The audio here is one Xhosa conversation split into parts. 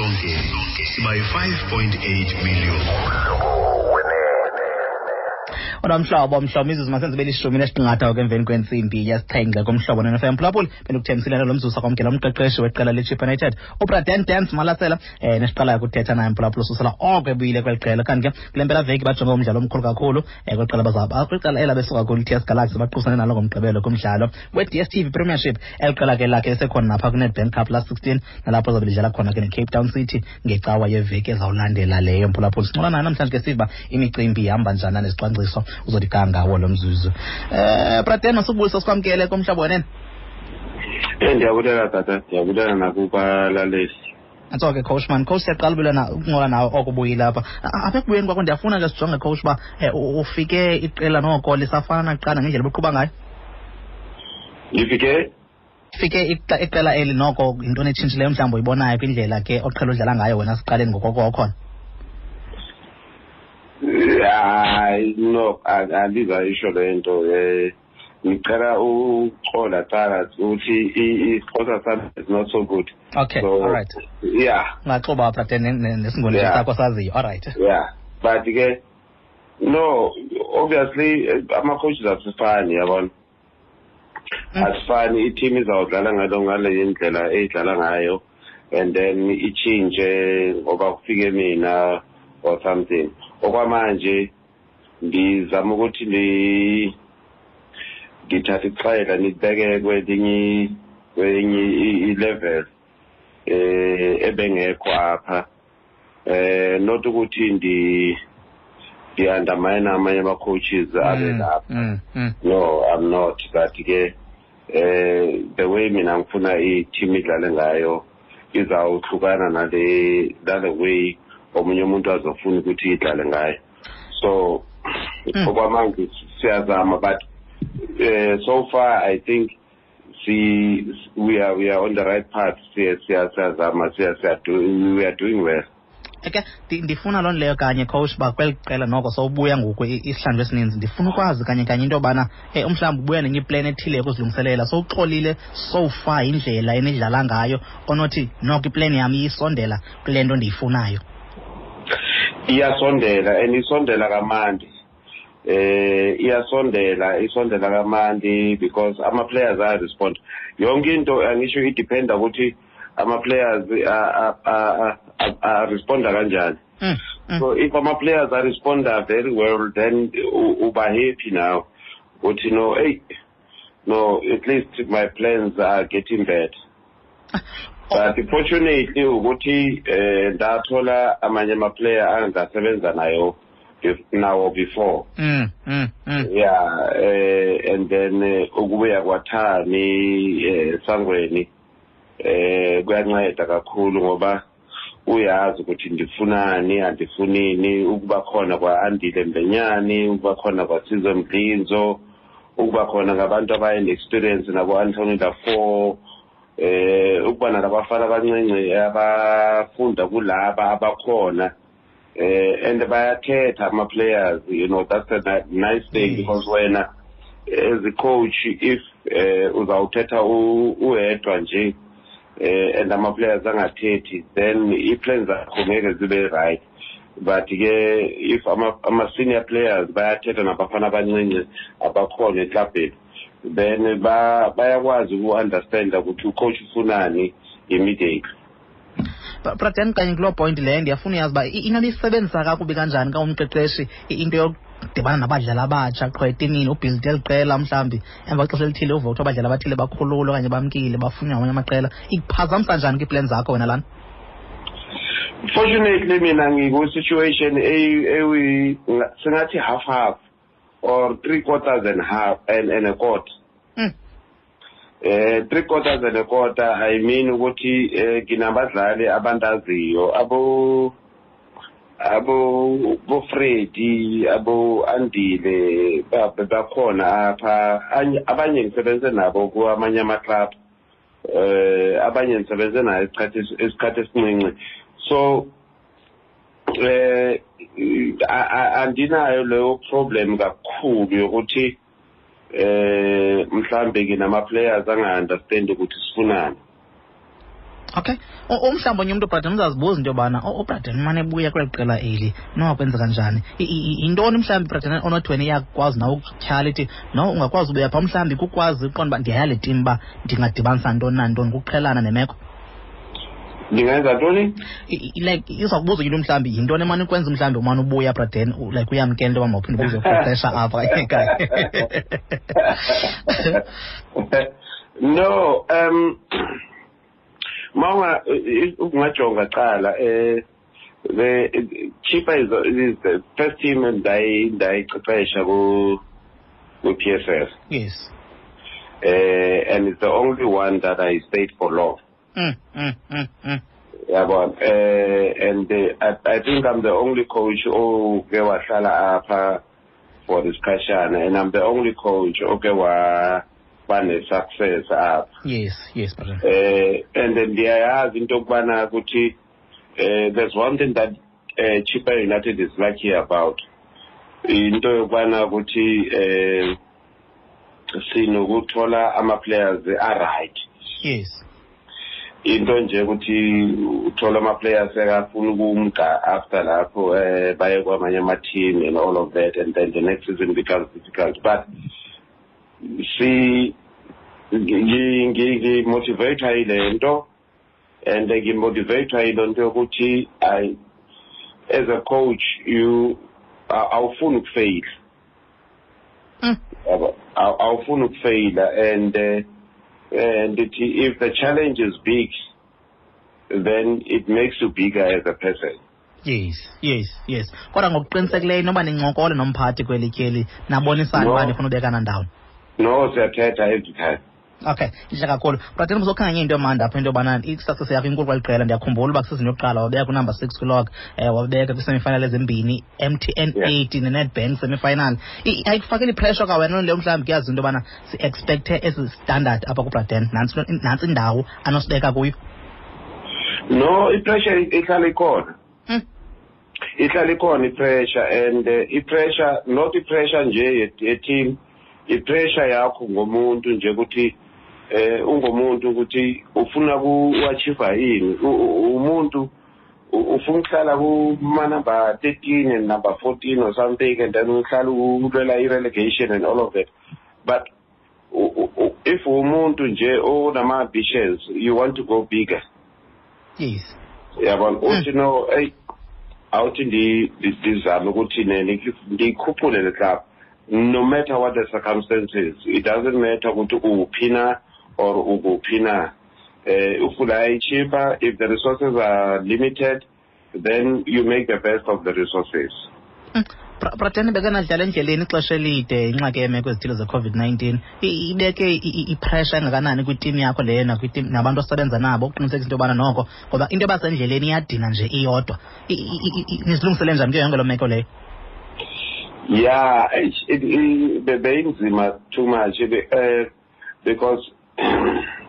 Sisonke siba yi-5.8 million. Kodwa mhlobo, mhlobo, imizuzu masenze belishumi nesiqingatha ke emveni kwentsimbi yesixhenxe kumhlobo neNFM. Mphulaphuli, bendikuthembisile lo mzuzu sakwamkela umqeqeshi weqela leChippa United, uBraden Dance Malasela, nesiqalayo kuthetha naye, mphulaphuli, ususela oko ebuyile kweli qela. Kanti ke kule mpelaveki bajonge umdlalo omkhulu kakhulu kweli qela bazaba kwiqela ela besuka kulo iTS Galaxy, baqubisane nalo ngoMgqibelo kumdlalo we-DStv Premiership. Eli qela ke lakhe esekhona napha kwiNedbank Cup last 16, nalapho zabe lidlala khona ke neCape Town City ngecawa yeveki ezawulandela leyo. Mphulaphuli, sincola nayo namhlanje ke siva imicimbi ihamba njani nezicwangciso uzothi ga ngawo lo mzuzu. Braden, masubulisa, sikwamkele kumhlobo wenene. Ndiyabulela tata, ndiyabulela nakubalaleli. Nantso ke, coach man. Coach, siyaqala ubulana ukuncola nawe oko ubuyile apha. Apha ekubuyeni kwakho, ndiyafuna ke sijonge, coach, uba ufike iqela noko lisafana nakuqala ngendlela obuqhuba ngayo? Ndifike Fike iqela eli noko, yintoni etshintshileyo mhlawumbi uyibonayo kwindlela ke oqhela udlala ngayo wena siqaleni ngokoko okhona? Hayi, no, andizayisho le nto. Ngicela uxola cala ukuthi isiXhosa sami is not so good. Okay. So, all right. Yeah. Ungaxuba, Braden, nesiNguni sakho saziyo. All right. Yeah, but ke no, obviously ama-coaches asifani, yabona. Asifani. I-team izawudlala ngale ndlela eyidlala ngayo and then itshintshe ngoba kufike mina or something. Okwamanje ndizama ukuthi ndithathe ixela nibeke kwelinye i-level ebengekho apha, not ukuthi ndi-undermine amanye ama-coaches abe lapha. No, I'm not, but ke the way mina ngifuna i-team idlale ngayo izawuhlukana nale way omunye umuntu azofuna ukuthi idlale ngayo. So okwamanje siyazama, but so far I think see we are on the right path. Siya siya siyazama, siya siya do, we are doing well. Ke ndifuna loo nto leyo kanye, coach, uba kweli qela noko sowubuya ngoku isihlandlo esininzi, ndifuna ukwazi kanye kanye into yobana mhlawumbi ubuya nenye iplan ethile yokuzilungiselela. Sowuxolile so far indlela enidlala ngayo, onothi noko iplan yam iyisondela kule nto ndiyifunayo? Iyasondela, and isondela kamandi. Iyasondela, isondela kamandi because ama players aya respond. Yonke into angisho idependa ukuthi ama players a responda kanjani. So if ama players are responda very well, then uba happy now uthi no, hey, no, at least my plans are getting better. But fortunately ukuthi ndathola amanye ama player angasebenza nayo nawo before. Yeah, and then ukubuya kwaThami Sangweni kuyanceda kakhulu ngoba uyazi ukuthi ndifunani, andifunini. Ukuba khona kwa-Andile Mbenyani, ukuba khona kwaSizwe Mdlinzo, ukuba khona ngabantu abayi-experience nabo-Anthony Laffor, ukuba nalabafana abancinci abafunda kulaba abakhona, and bayathetha ama players. That's a nice thing because wena as a coach, if uzawuthetha uwedwa nje and ama players angathethi, then i-plans zakho ngeke zibe right. But ke if ama senior players bayathetha nabafana abancinci abakhona eklabheni, then bayakwazi uku-understanda ukuthi ucoach ufunani immediately. Braden, kanye kuloo point leyo, ndiyafuna uyazi uba inoba isebenzisa kakubi kanjani ka umqeqeshi into yokudibana nabadlali abatsha qho etimini, ubuilde eli qela, mhlawumbi emva kwexesha elithile uve kuthiwa abadlali abathile bakhululwe okanye bamkile, bafunwa ngamanye amaqela. Ikuphazamisa njani kwiiplan zakho wena lana? Fortunately mina ngiku-situation singathi half half or three quarters and half and a quarter. Three quarters and a quarter, I mean ukuthi nginabadlali abandaziyo, abo bo Freddy, abo Andile, bakhona apha. Abanye ngisebenze nabo kwamanye ama club, abanye ngisebenze nayo isikhathi esincinci. So andinayo leyo problem kakhulu yokuthi mhlambe nginama players anga understand ukuthi sifunani. Okay. Umhlawumbi onye umntu, Braden, uzazibuza into yobana uBraden umane ebuya kweli qela eli, nokwenzeka kanjani? Yintoni mhlawumbi, Braden, onothi wena iyakwazi nawe ukutyhala ithi no ungakwazi ubuya phaa, mhlawumbi kukwazi uqonda uba ndiyaya le tim uba ndingadibanisa ntoni nantoni, kuqhelana nemeko? Ndingenza ntoni? Like iza kubuza into mhlawumbi yintoni emane ukwenza mhlawumbi umane ubuya, Braden, like uyamkela into yoba mawuphinde ubuzoqeqesha apha ekhaya. No, mawunga ungajonga qala, the Chippa is the first team endayiqeqesha ku PSL. And it's the only one that I stayed for long. Yabona, and I think I'm the only coach oke wahlala apha for isikhashana, and I'm the only coach oke wa bane-success apha. Yes, brother. And then ndiyayazi into yokubana ukuthi there's one thing that Chippa United is lucky about, into yokubana ukuthi sinokuthola ama-players a-right. Into nje ukuthi uthola ama-players ekafuna ukumka after lapho, baye kwamanye ama-team and all of that, and then the next season becomes difficult. But see, ngi-motivate yile nto, and ngi-motivate yile nto yokuthi I, as a coach, you awufuni ukufeyila. Awufuni ukufeyila, and if the challenge is big, then it makes you bigger as a person. Yes. Kodwa ngokuqinisekileyo noba nincokole nomphathi kweli tyeli, nabonisana uba nifuna ubekana ndawoni? No, siyathetha every time. Okay, intle kakhulu. Braden, uzokhanganya into emandi apha, into yobana i-success yakho inkulu kweli qela. Ndiyakhumbula uba kwisizini yokuqala wabeka kunumber 6 kwilog, wabeka kwi-semifinal ezimbini, MTN 8 ne-Nedbank semifinal. Ayikufakeli ipressure ka wena leyo mhlawumbi kuyazi into yobana si-expecte esi standard apha kuBraden, nantsi indawo anosibeka kuyo? No, ipressure ihlala ikhona. Ihlala ikhona ipressure, and ipressure, not ipressure nje ye-team, ipressure yakho ngomuntu nje ukuthi ungomuntu ukuthi ufuna ku-achieve ini. Umuntu ufuna ukuhlala kuma number 13 and number 14 or something, and then uhlala ulwela i-relegation and all of that. But if umuntu nje onama ambitions, you want to go bigger. Yabona, uthi no, hey, awuthi ndizame ukuthi ndiyikhuphule le club, no matter what the circumstances. It doesn't matter ukuthi uphi na or ukuphi na. Ufuna iChippa, if the resources are limited, then you make the best of the resources. Braden, bekanadlala endleleni ixesha elide, ingxaki yeemeko ezithile ze-COVID-19 ibeke ipressure engakanani kwitimu yakho leyo nakwitim nabantu osebenza nabo ukuqinisekisa into yobana noko, ngoba into yoba sendleleni iyadina nje iyodwa, nizilungisele njani kuyo yonke loo meko leyo? Yeah, beyinzima too much, because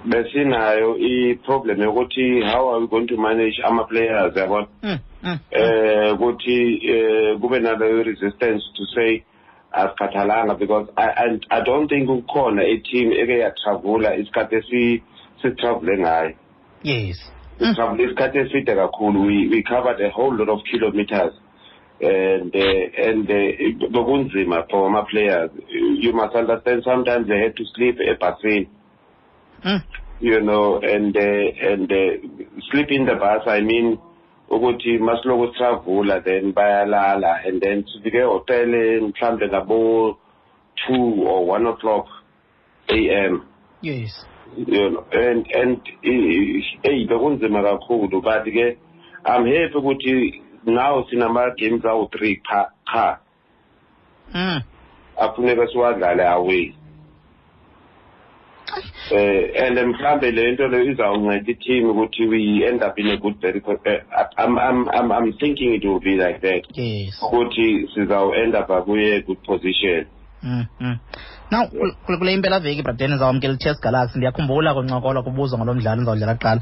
besinayo i-problem yokuthi how are we going to manage ama-players, yabona, ukuthi kube naleyo resistance to say asikhathalanga, because I don't think kukhona i-team eke yatravula isikhathi esitravule ngayo. Sitravule isikhathi eside kakhulu. We covered a whole lot of kilometers, and bekunzima for ama-players. You must understand, sometimes they had to sleep ebhasini. You know, and sleep in the bus, I mean, ukuthi masiloko sitravula, then bayalala, and then sifike ehotel mhlambe ngabo 2 or 1 o'clock AM. You know, and hey, bekunzima kakhulu, but ke I'm happy ukuthi now sinama games awu 3 qha. Afuneka siwadlale away. And mhlambe le nto leyo izawunceda i-team ukuthi we end up in a good very, I'm thinking it will be like that. Ukuthi sizawu end up kuye good position. Now, kule impela veki, Braden, ndizawamkela i-TS Galaxy. Ndiyakhumbula kuncokola kubuzwa ngalo mdlalo ndizawudlala kuqala.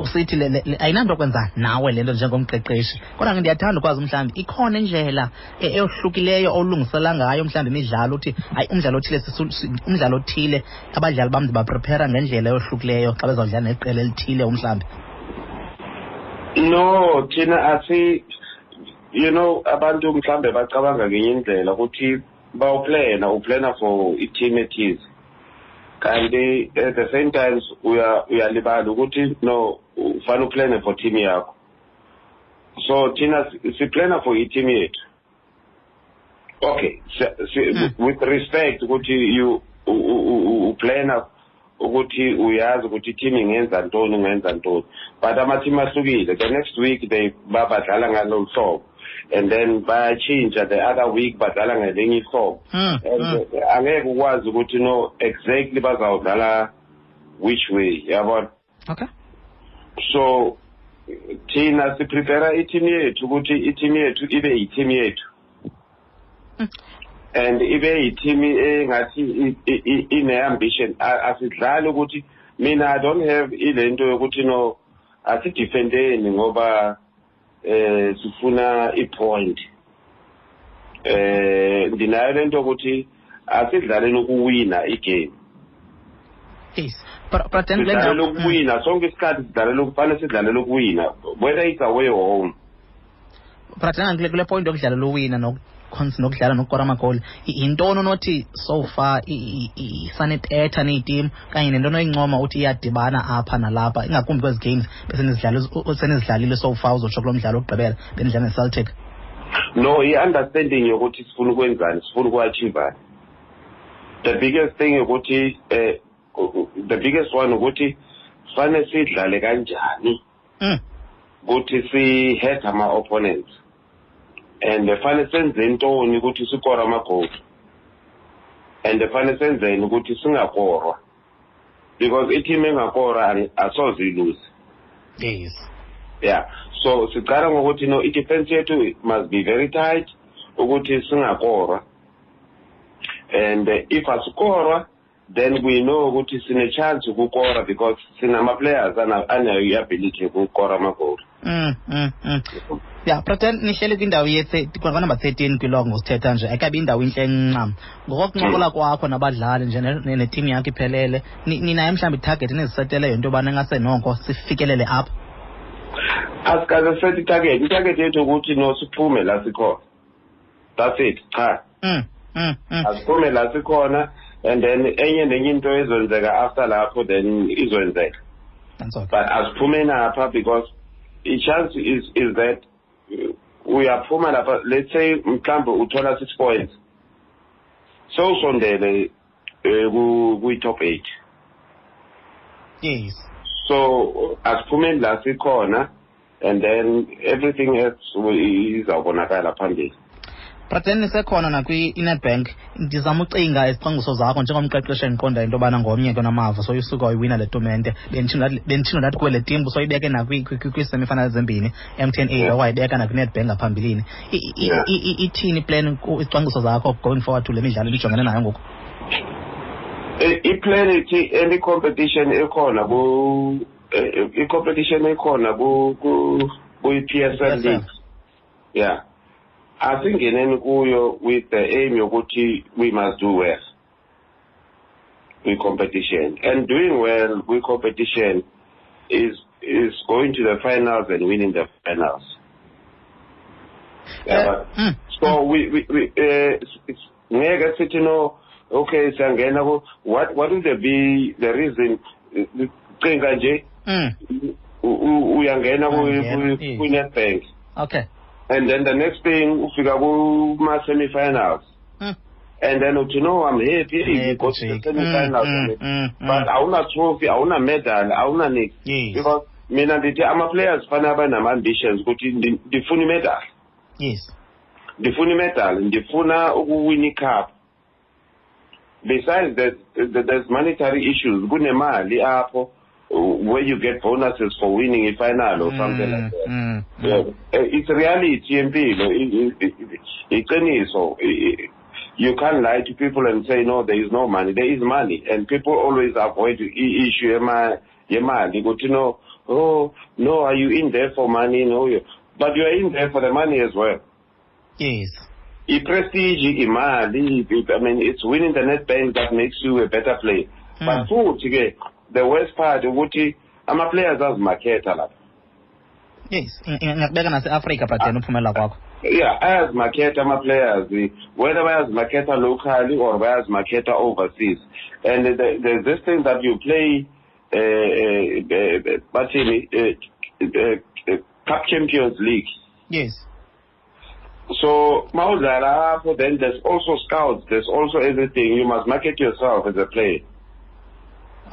Usithi ayinanto kwenza nawe le nto njengomqeqeshi, kodwa ke ndiyathanda ukwazi mhlawumbi ikhona indlela eyohlukileyo olungisela ngayo mhlawumbi imidlalo, uthi hayi, umdlalo othile, umdlalo othile abadlali bam ndibaprepare ngendlela eyohlukileyo xa bezawudlala neqela elithile umhlawumbi? No, thina asi, abantu mhlambe bacabanga ngenye indlela ukuthi bawuplana, uplana for i-team ethize. Kanti at the same time uyalibala ukuthi no, ufana uplane for team yakho. So thina siplana for i-team yethu. Okay, with respect ukuthi you uplana ukuthi uyazi ukuthi i-team ingenza ntoni, ingenza ntoni. But ama-team ahlukile. The next week they babadlala ngalo hlobo, and then bayatshintsha the other week badlala ngelinye ihlobo. And angeke ukwazi ukuthi no exactly bazawudlala which way, yabona. Okay. So thina siprepare i-team yethu ukuthi i-team yethu ibe yi-team yethu. And ibe yi-team engathi ine-ambition. Asidlali ukuthi mina I don't have ilento yokuthi no asidefendeni ngoba sifuna i-point. Ndinayo lento ukuthi asidlaleni ukuwina igame. Yes. But then sidlalela ukuwina sonke isikhathi, sidlalela kufanele sidlalele ukuwina whether it's away or home. But then kule point yokudlalela uwina nokudlala nokukora amagoli, yintoni onothi so far isanetetha neyitimu kanye nento onoyincoma uthi iyadibana apha nalapha, ingakumbi kwezi games besenizidlalile so far, uzotsho kulo mdlalo wokugqibela benidlala neCeltic? No, i-understanding yokuthi sifuna ukwenzani, sifuna uku-achievani. The biggest thing ukuthi the biggest one ukuthi fanele sidlale kanjani ukuthi si-hurt ama-opponents, and fanele senze ntoni ukuthi sikore amagoli, and fanele senzeni ukuthi singakorwa, because i-team engakora asoze ilose. Yes. Yeah. So siqala ngokuthi no, i-defense yethu must be very tight ukuthi singakorwa, and if asikorwa then we know ukuthi sine-chance ukukora because sinama-players anayo i-ability yokukora amagoli. Yeah, Bra Dan, nihleli kwindawo kwanumber 13 kwilog ngosithetha nje, ayikabi indawo intle ncam. Ngokokuncokola kwakho nabadlali nje neteam yakho iphelele, ninayo mhlawumbi itarget eniziseteleyo into yobana ingase noko sifikelele apha? Asikaze set itarget. Itarget yethu ukuthi no siphume la sikhona. That's it, cha. Asiphume la sikhona, and then enye nenye into ezenzeka after lapho then izoenzeka. But asiphume napha because i chance is that uyaphuma lapha, let's say mhlambe uthola 6 points, so usondele kwi top 8. Yes. So asiphumeni la sikhona, and then everything else izawubonakala phambili. But then nisekhona nakwi-Nedbank, ndizama ucinga izicwangciso zakho njengomqeqeshi endiqonda into yobana ngomnye ke onamava, so usuka wayiwina le tumente. Benditshilo ndathi kuwe le team soyibeke nakwi-semifinal zembini, MTN 8 wayibeka nakwi-Nedbank ngaphambilini. Ithini iplan, izicwangciso zakho going forward to le midlalo nijongene nayo ngoku? I-plan ithi any competition ekhona i-competition ekhona kwi-PSL League. Yeah. Asingeneni kuyo with the aim yokuthi we must do well kwi-competition, and doing well kwi-competition is going to the finals and winning the finals. Yeah, so we ngeke sithi no, okay siyangena ku what would be the reason? Cinga nje uyangena ku-Nedbank. Okay. And then the next thing, ufika kuma semi-finals. And then uthi no, I'm happy we go to the semi-finals. But awuna trophy, awuna medal, awuna nix. Yes. Because mina ndithi ama-players fanele abe nama-ambitions ukuthi ndifuna imedal. Yes. Ndifuna imedal, ndifuna ukuwina icup. Besides that, there's monetary issues. Kunemali apho where you get bonuses for winning a final or something like that. Yeah. It's reality yempilo. Iqiniso. You can't lie to people and say no, there is no money. There is money, and people always avoid the issue yemali. Go to know, oh no, are you in there for money? No, but you are in there for the money as well. Yes. I-prestige, imali, I mean, it's winning the Nedbank that makes you a better player. But futhi ke, the worst part ukuthi ama-players azimakhetha lapha. Yes, ingakubeka nase-Afrika, Braden, uphumela kwakho. Yeah, ayazimaketha ama-players, whether bayazimaketha locally or bayazimaketha overseas. And there's this thing that you play, bathini, Cup Champions League. Yes. So, mawudlala apho, then there's also scouts, there's also everything. You must market yourself as a player.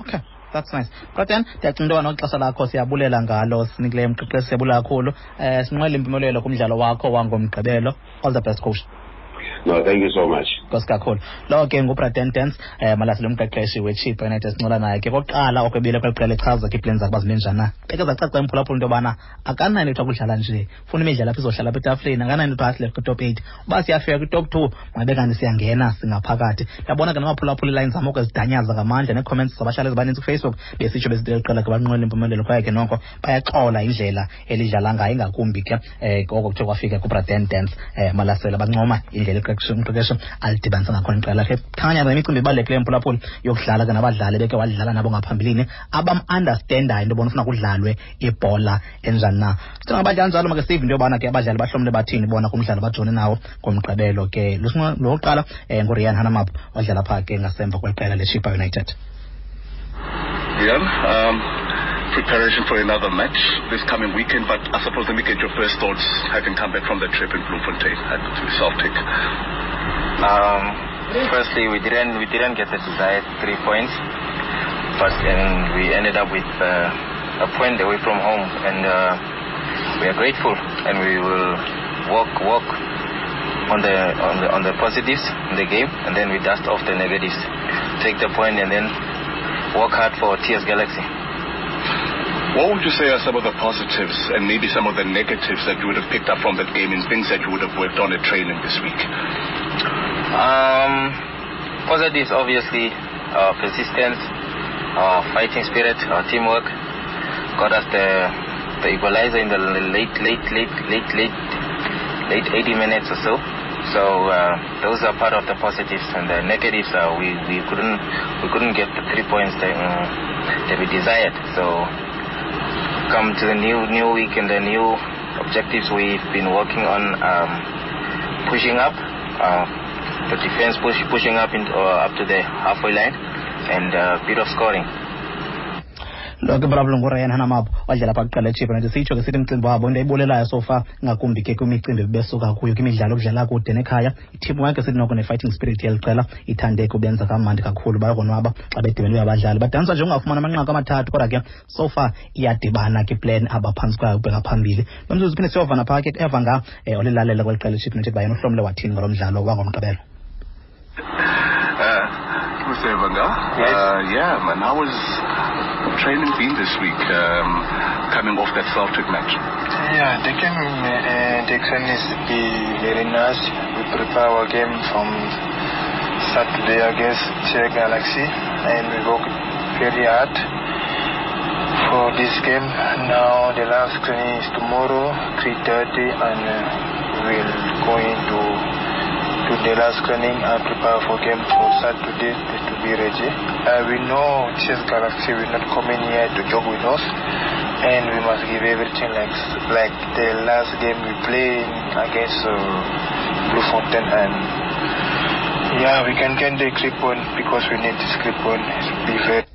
Okay, that's nice. Braden, ndiyacinga into yoba noxesha lakho siyabulela ngalo, sinikileyo mqeqeshi, siyabulela kakhulu. Sinqwele impumelelo kumdlalo wakho wangoMgqibelo. All the best, coach. No, thank you so much. Nkosi kakhulu. Lo ke nguBraden Dance, Malasela, umqeqeshi weChippa United, sincola naye ke kokuqala okwebile kweli qela, echaza ke iiplani zakhe uba zime njani na. Beke zacaca imphulaphula into yobana akanayo into kudlala nje, funa imidlalo apha izohlala apha etafileni, akanayo into athi kwi-top 8. Uba siyafika kwi-top 2, mabe kanti siyangena singaphakathi. Ndiyabona ke namaphulaphula iilayini zam oko zidanyaza ngamandla, nee-comments zabahlali ezibaninzi kuFacebook besitsho besithi eli qela ke banqwele impumelelo, kwaye ke noko bayaxola indlela elidlala ngayo, ingakumbi ke oko kuthe kwafika kuBraden Dance Malasela, bancoma indlela umqeqeshi alidibanisa ngakhona iqela lakhe. Khanya nemicimbi ibalulekileyo, mphulaphuli, yokudlala ke nabadlali beke wadlala nabo ngaphambilini, abam-understandayo into yobona ufuna kudlalwe ibhola enjani na. Sithenga abadlali njalo, make sive into yobana ke abadlali bahlomle bathini bona kumdlalo bajone nawo ngoMgqibelo ke. Lowokuqala nguRian Hanamap, wadlala phaa ke ngasemva kweqela leChippa United. Rian, preparation for another match this coming weekend, but I suppose let me get your first thoughts having come back from the trip in Bloemfontein to Celtic. Firstly, we didn't get the desired 3 points, but we ended up with a point away from home, and we are grateful, and we will work on the positives in the game, and then we dust off the negatives, take the point, and then work hard for TS Galaxy. What would you say are some of the positives and maybe some of the negatives that you would have picked up from that game and things that you would have worked on at training this week? Positives, obviously, persistence, fighting spirit, teamwork got us the equalizer in the late 80 minutes or so. So those are part of the positives, and the negatives are we couldn't get the 3 points that we desired. So come to the new week and the new objectives we've been working on, pushing up the defense, pushing up up to the halfway line, and a bit of scoring. Lo ke brablo nguRyan Hanamap, wadlala phaa kuqala eChippa United. Sitsho ke sithi umcimbi wabo into ayibulelayo so far, ngakumbi ke kwimicimbi besuka kuyo kwimidlalo okudlala kude nekhaya, i-teamwork esithi noko ne-fighting spirit yeli qela ithande kubenza kamandi kakhulu, bayakonwaba xa bedibene abadlali, badaniswa nje ungafumana amanqaku amathathu, kodwa ke so far iyadibana ke plan abaphantsi kwayo ukubheka phambili. Lo mzuzu phinde siyovana phaa ke eva nga olilalela kweli qela eChippa United, bayena uhlomle wathini ngalo mdlalo wangoMgqibelo. Mr. Evanga, yes. Yeah, man, how was training been this week, coming off that Celtic match? Yeah, the game, the training is be very nice. We prepare our game from Saturday against TS Galaxy, and we work very hard for this game. Now the last training is tomorrow, 3:30, and we'll go into to the last training and prepare for game for Saturday to be ready. We know TS Galaxy will not come in here to joke with us, and we must give everything like the last game we played against Bloemfontein, and yeah, we can get the 3 point because we need this 3 point. Be fair.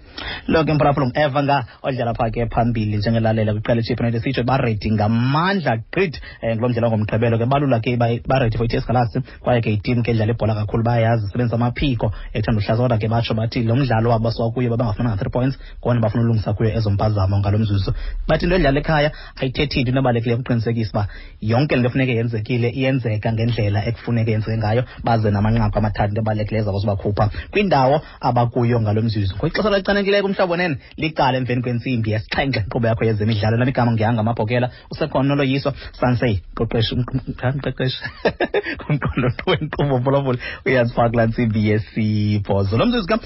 Lo ke mphulaphula eva nga odlala phaa ke phambili njengelalela kwiqela iChippa United, sitsho baredi ngamandla gqithi ngulo mdlalo ngoMgqibelo ke, balula ke baredi for iTS Galaxy, kwaye ke itim ke edlala ibhola kakhulu, bayayazi isebenzisa amaphiko ethanda uhlaza, kodwa ke batsho bathi lo mdlalo wabo basuka kuyo babangafuna 3 points, kona bafuna ulungisa kuyo ezo mpazamo ngalo mzuzu. Bathi into edlala ekhaya ayithethi into, ebalulekileyo ukuqinisekisa uba yonke le nto efuneke yenzekile iyenzeka ngendlela ekufuneke yenzeke ngayo, baze namanqaku amathathu, into ebalulekileyo zabo zibakhupha kwindawo abakuyo ngalo mzuzu. Kwixesha elichanekileyo kumhlobo nene liqala emveni kwentsimbi yesixhenxe, inkqubo yakho yezemidlalo. Lam igama ngihanga Mabhokela, usekhona noloyiswa Sansey, mqeqeshi kumqondo wenkqubo, mphulaphuli, uyazifaka kulaa ntsimbi yesibhozo. Lo mzuzu.